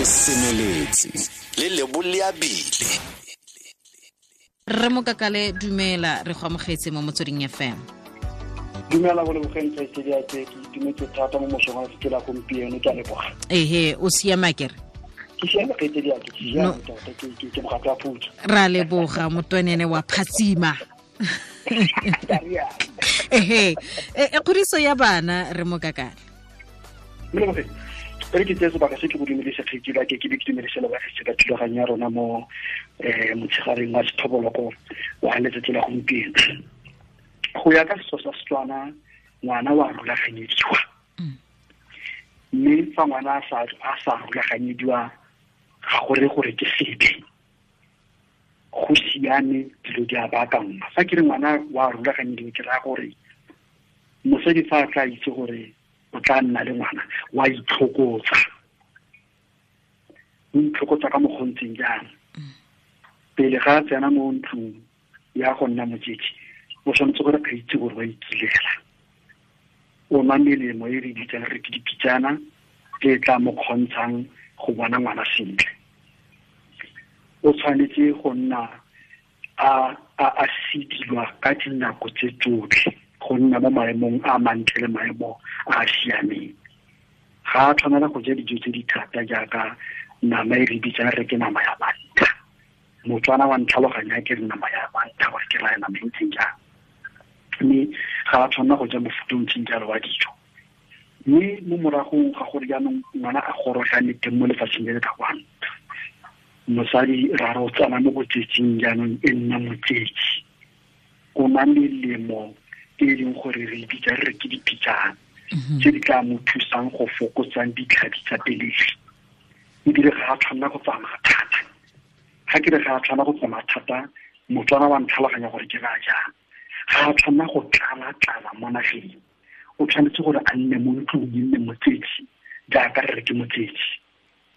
Re semeletse le leboleabile. Re Mokakale, dumela, re go amogetse mo Motsweding FM. Dumela go lebogeng kgaitsedi ya ke itumetse thata mo mosong wa letsatsi la gompieno, ke a leboga. Ehe, o siama kere? Ke siame kgaitsedi ya ke, ke siame tota, ke mogatlo wa phutso. Ra leboga motwenene wa phatsima. Ehe, e kgodiso ya bana re Mokakale. Molebogeng, re ke tseye sebaka se ke go dumedise kgaitsedi ya ke, ke be ke dumedise le bagaetsho ka thulaganyo ya rona mo motshegareng wa sethoboloko wa letsatsi la gompieno. Go ya ka setso sa Setswana, ngwana wa rulaganyediwa. Mme fa ngwana a sa rulaganyediwa, ga go re gore ke sebe. Go siame, dilo di a baakangwa. Fa ke re ngwana wa rulaganyediwa, ke raya gore mosadi fa a tla itse gore o tla nna le ngwana, wa itlhokotsa. O itlhokotsa ka mokgwa o ntseng jang. Pele ga a tsena mo ntlong ya go nna motsetsi, o tshwanetse gore a itse gore wa ikilela. O nwa melemo e re bitsang re ke dipitsana, e tla mo kgontshang go bona ngwana sentle. O tshwanetse go nna a sedilwa ka dinako tse tsotlhe, go nna mo maemong a mantle le maemo a a siameng. Ga a tshwanela go ja dijo tse di thata jaaka nama e re bitsang re ke nama ya bantlha. Motswana wa ntlhaloganya ke re nama ya bantlha gore ke raya nama e ntseng jang. Mme ga a tshwanela go ja mofuta o ntseng jalo wa dijo. Mme mo moragong ga gore jaanong ngwana a gorogane teng mo lefatsheng le le ka kwano, mosadi ra re o tsena mo botsetsing jaanong e nna motsetsi. O nwa melemo e leng gore re bitsa re ke dipitsana tse di tla mo thusang go fokotsang ditlhabi tsa pelegi. Ebile ga a tshwanela go tsamaya thata. Ga ke re ga a tshwanela go tsamaya thata, Motswana wa ntlhaloganya gore ke raya jang. Ga a tshwanela go tlala-tlala mo nageng. O tshwanetse gore a nne mo ntlong, e nne motsetsi, jaaka re re ke motsetsi.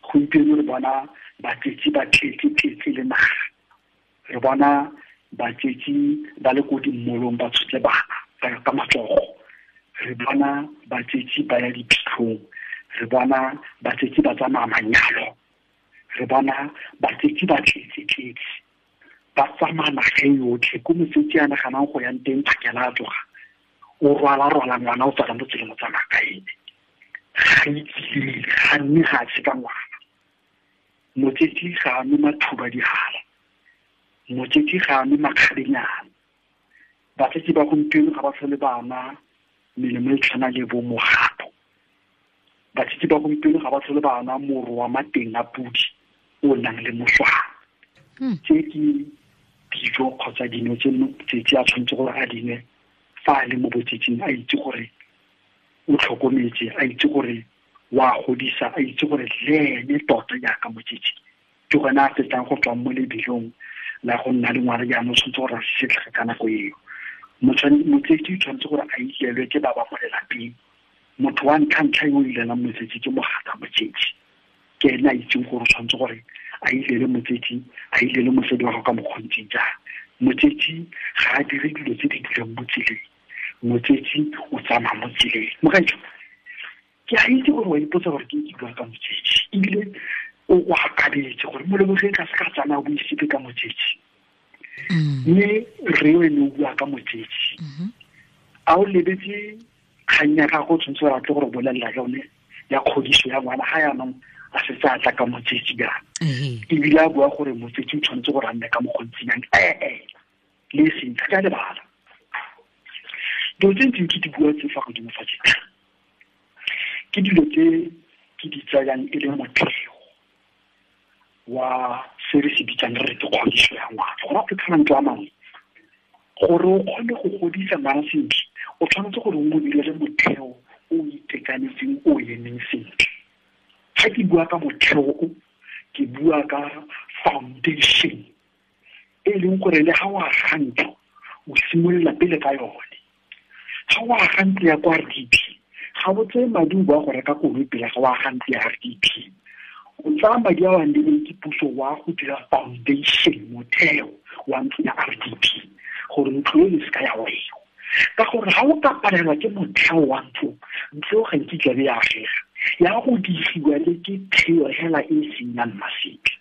Gompieno re bona batsetsi ba tletse-tletse le naga. Re bona batsetsi ba le ko dimmolong ba tshotse bana ka matsogo. Re bona batsetsi ba ya diphitlhong. Re bona batsetsi ba tsamaya manyalo. Re bona batsetsi ba tletse-tletse. Ba tsamaya naga e yotlhe, ko motsetsi a naganang go yang teng phakela a tloga. O rwala-rwala ngwana o tswala mo tseleng o tsamaya ka ene. Ga itse, ga nne ga a tsheka ngwana. Motsetsi ga a nwe mathuba dihala. Motsetsi ga a nwe makgabenyana. Batsetsi ba gompieno ga ba tlhole ba nwa melemo e tshwana le bo mogato. Batsetsi ba gompieno ga ba tlhole ba nwa moro wa mateng a pudi o nang le moswana. Tse ke dijo kgotsa dino tse motsetsi a tshwanetse gore a di nwe fa a le mo botsetsing, a itse gore o tlhokometse, a itse gore wa godisa, a itse gore le ene tota jaaka motsetsi ke gone a fetang go tswa mo lebelong la go nna le ngwana jaanong, o tshwanetse gore a setlhege ka nako eo. Motsetsi o tshwanetse gore a ilelwe ke ba ba mo lelapeng. Motho wa ntlha-ntlha yo o ilelang motsetsi ke mogatsa motsetsi. Ke ene a itseng gore o tshwanetse gore a ilele motsetsi, a ilele mosadi wa gagwe ka mokgwa o ntseng jang. Motsetsi ga a dire dilo tse di dulang mo tseleng. Motsetsi o tsamaya mo tseleng. Mogaetsho, ke a itse gore wa ipotsa gore ke ke bua ka motsetsi, ebile o akabetse gore Molebogeng ga se ka tsamaya o buise ka motsetsi. Mme re o ene o bua ka motsetsi. A o lebetse kgang ya gago, o tshwanetse gore a tle gore bolelela yone ya kgodiso ya ngwana ga jaanong a setse a tla ka motsetsi jaana. Ebile a bua gore motsetsi o tshwanetse gore a nne ka mokgwa o ntseng jang. Le e seng, ga ke a lebala. Dilo tse ntseng ke di bua tse fa godimo fa tse, ke dilo tse ke di tsayang e le motheo wa se re se bitsang re re ke kgodiso ya ngwana. Go raya ka mantswe a mangwe, gore o kgone go godisa ngwana sentle, o tshwanetse gore o mo direle motheo o itekanetseng, o emeng sentle. Ga ke bua ka motheo o, ke bua ka foundation e leng gore le ga o aga ntlo, o simolola pele ka yone. Ga o aga ntlo ya kwa RDP, ga o tseye madi o boa go reka koloi pele ga o aga ntlo ya RDP. O tsaya madi a o a neilweng ke puso wa go dira foundation, motheo wa ntlo ya RDP, gore ntlo e se ka ya wela. Ka gore ga o ka palelwa ke motheo wa ntlo, ntlo ga nkitla be ya agega. Ya go digiwa le ke theo hela e seng ya mmaseke.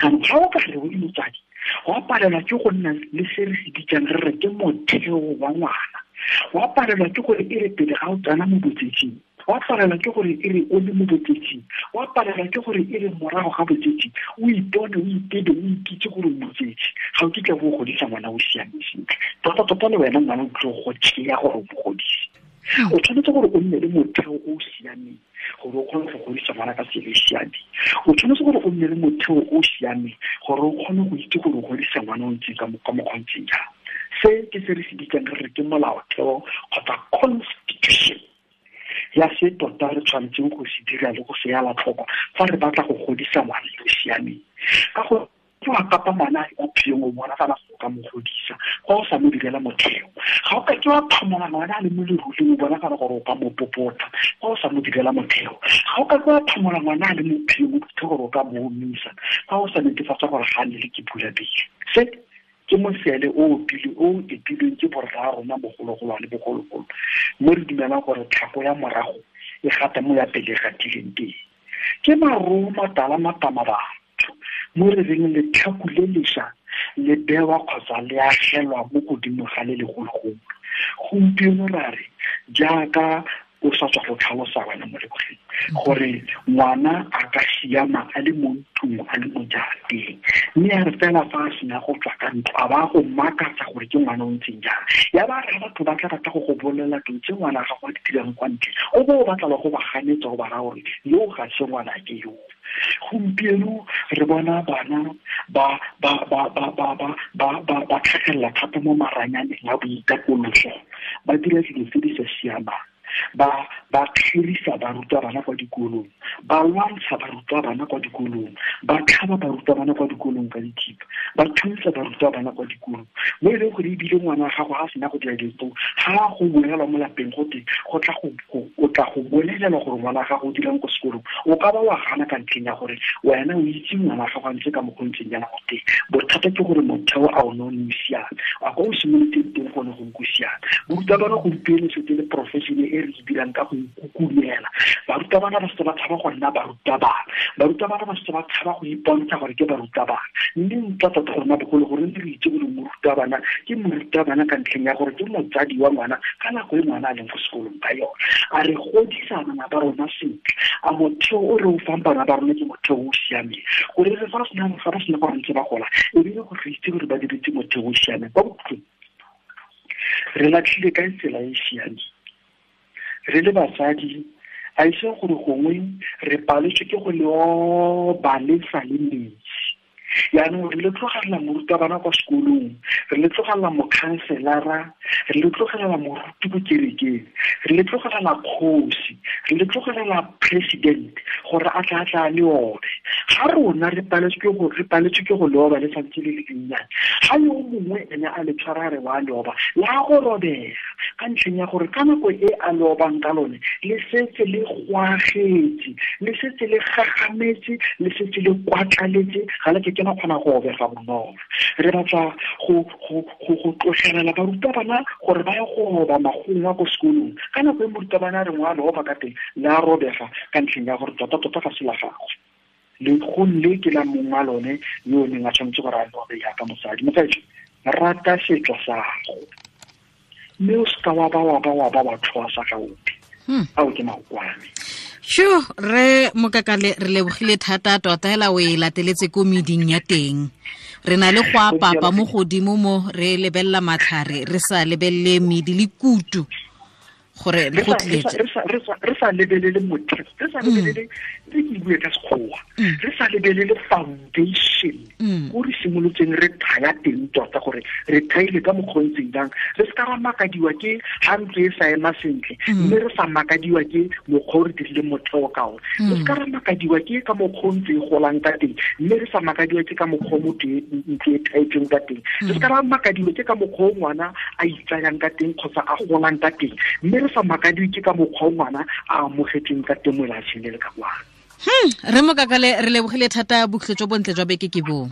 Jaanong ga o ka re o le motsadi wa palelwa ke go nna le se re se bitsang re re ke motheo wa ngwana, wa palelwa ke gore e re pele ga o tsena mo botsetsing, wa palelwa ke gore e re o le mo botsetsing, wa palelwa ke gore e re morago ga botsetsi o ipone o itebe o ikitse gore o motsetsi, ga o kitla bo godisa ngwana o siame sentle. Tota-tota le wena ngwana o tlo go tšea gore o mo godise. O tshwanetse gore o nne le motheo o o siameng gore o kgone go godisa ngwana ka tsela e siameng. O tshwanetse gore o nne le motheo o o siameng gore o kgone go itse gore o godisa ngwana o ntseng ka mokgwa o ntseng jang. Se ke se re se bitsang re re ke molaotheo kgotsa constitution ya se tota re tshwanetseng go se dira le go se ela tlhoko fa re batla go godisa ngwana yo o siameng. Ka go ke wa kapa ngwana a phiyong o bona fela go ka mo godisa fa o sa mo direla motheo. Ga o ka ke wa phamola ngwana a le mo leruleng o bona fela gore o ka mo popota fa o sa mo direla motheo. Ga o ka ke wa phamola ngwana a le mo phiyong o fitlhe gore o ka mo omisa fa o sa netefatsa gore ga a nne le ke pula pele. Se ke mosele o pele o epilweng ke borra rona bogologolwane bogologolo, mo re dumelang gore tlhako ya morago e gata mo ya pele e gatileng teng. Ke maroo matala matama batho mo re reng letlhaku le lešwa le bewa kgotsa le agelwa mo godimo ga le legologolo. Gompieno ra re jaaka o sa tswa go tlhalosa wena mo lebogeng gore ngwana a ka siama a le mo ntlong a le mo jarateng, mme a re fela fa a sena go tswa ka ntlo a ba go makatsa gore ke ngwana o ntseng jang. Ya ba re batho ba tla rata go go bolelela dilo tse ngwana gago a di dirang kwa ntle, o bo o batla le go ba ganetsa go ba raya gore yo ga se ngwana ke yo. Gompieno re bona bana ba tlhagelela thata mo maranyaneng a boitapoloso, ba dira dilo tse di sa siamang, ba kgerisa barutabana kwa dikolong, ba lwantsha barutabana kwa dikolong, ba tlhaba barutabana kwa dikolong ka dithipa, ba thuntsa barutabana kwa dikolong, mo e leng gore ebile ngwana wa gago ga a sena go dira dilo tseo, ga go bolelwa mo lapeng gote o tla go bolelelwa gore ngwana wa gago o dirang ko sekolong, o ka ba wa gana ka ntlheng ya gore wena o itse ngwana wa gago a ntse ka mokgwa o ntseng jaana gote. Bothata ke gore motheo a o ne o ne o siame, a kwa o simoloteng teng gone go o siame. Morutabana gompieno setse le profession e re dirang ka go ikukumela. Barutabana ba setse ba tshaba go nna barutabana, barutabana ba setse ba tshaba go ipontsha gore ke barutabana. Mme ntla tota rona bogolo gore re itse gore morutabana ke morutabana ka ntlheng ya gore ke motsadi wa ngwana ka nako e ngwana a leng ko sekolong ka yone. A re godisa bana ba rona sentle, a motheo o re o fang bana ba rona ke motheo o siameng, gore re fa ba sena gore ntse ba gola ebile gore re itse gore ba diretse motheo o siameng. Kwa bokhutlong re latlhile ka tsela e siameng re le basadi, a ise gore gongwe re paletswe ke go leoba le sa le metsi. Jaanong re le tlogelela morutabana kwa sekolong, re le tlogelela mokhanselara, re le tlogelela moruti ko kerekeng, re le tlogelela kgosi, re le tlogelela president gore a tla tla le obe. Ga rona re paletswe ke go leoba le santse le le dinnyane, ga yo mongwe ene a le tshwara re wa leoba la go robega ka ntlheng ya gore ka nako e a leobang ka lone le setse le gwagetse, le setse le gagametse, le setse le kwatlaletse, ga le ke kgona go obega bonolo. Re batla go tlogelela barutabana gore ba ye go oba magongwa ko sekolong. Ka nako e morutabana a reng wa leoba ka teng le a robega ka ntlheng ya gore tota-tota ga se la gagwe, legong le ke la mongwe wa lone yo o neng a tshwanetse gore a leobe jaaka mosadi. Mogaetsho, rata setso sa gago mme o seka wa ba wa tlhoa sa ga ope. Ao ke maokwane. Sure, re Mokakale re lebogile thata tota hela o e lateletse ko meding ya teng. Re na le go apapa mo godimo mo re lebelela matlhare, re sa lebelele medi le kutu gore go tletse. Re sa lebelele motheo, re sa lebelele re ke bue ka sekgowa, re sa lebelele foundation ko re simolotseng re thaya teng tota gore re thaile ka mokgwa o ntseng jang. Re se ka ra makadiwa ke ga ntlo e sa ema sentle, mme re sa makadiwa ke mokgwa o re dirileng motheo ka one. Re se ka ra makadiwa ke ka mokgwa o ntse e golang ka teng, mme re sa makadiwa ke ka mokgwa o motho ntlo e thaetsweng ka teng. Re se ka ra makadiwa ke ka mokgwa o ngwana a itsayang ka teng kgotsa a golang ka teng, mme re sa makadiwe ke ka mokgwa o ngwana a amogetsweng ka teng mo lefatsheng le le ka kwano. Re Mokakale re lebogile thata, bokhutlo jo bontle jwa beke ke bo.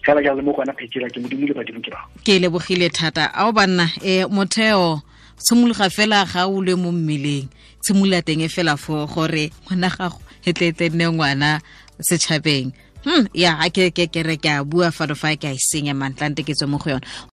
Fela jalo mo go wena phetsela ke modimo le badimo ke ba. Ke lebogile thata. Ao banna, motheo tshimologa fela ga o le mo mmeleng. tshimolola teng e fela fo gore ngwana gago e tle tle nne ngwana setšhabeng. Ya, ke ke ke re ke a bua fano fa ke a e senya mantlante ke tswe mo go yone.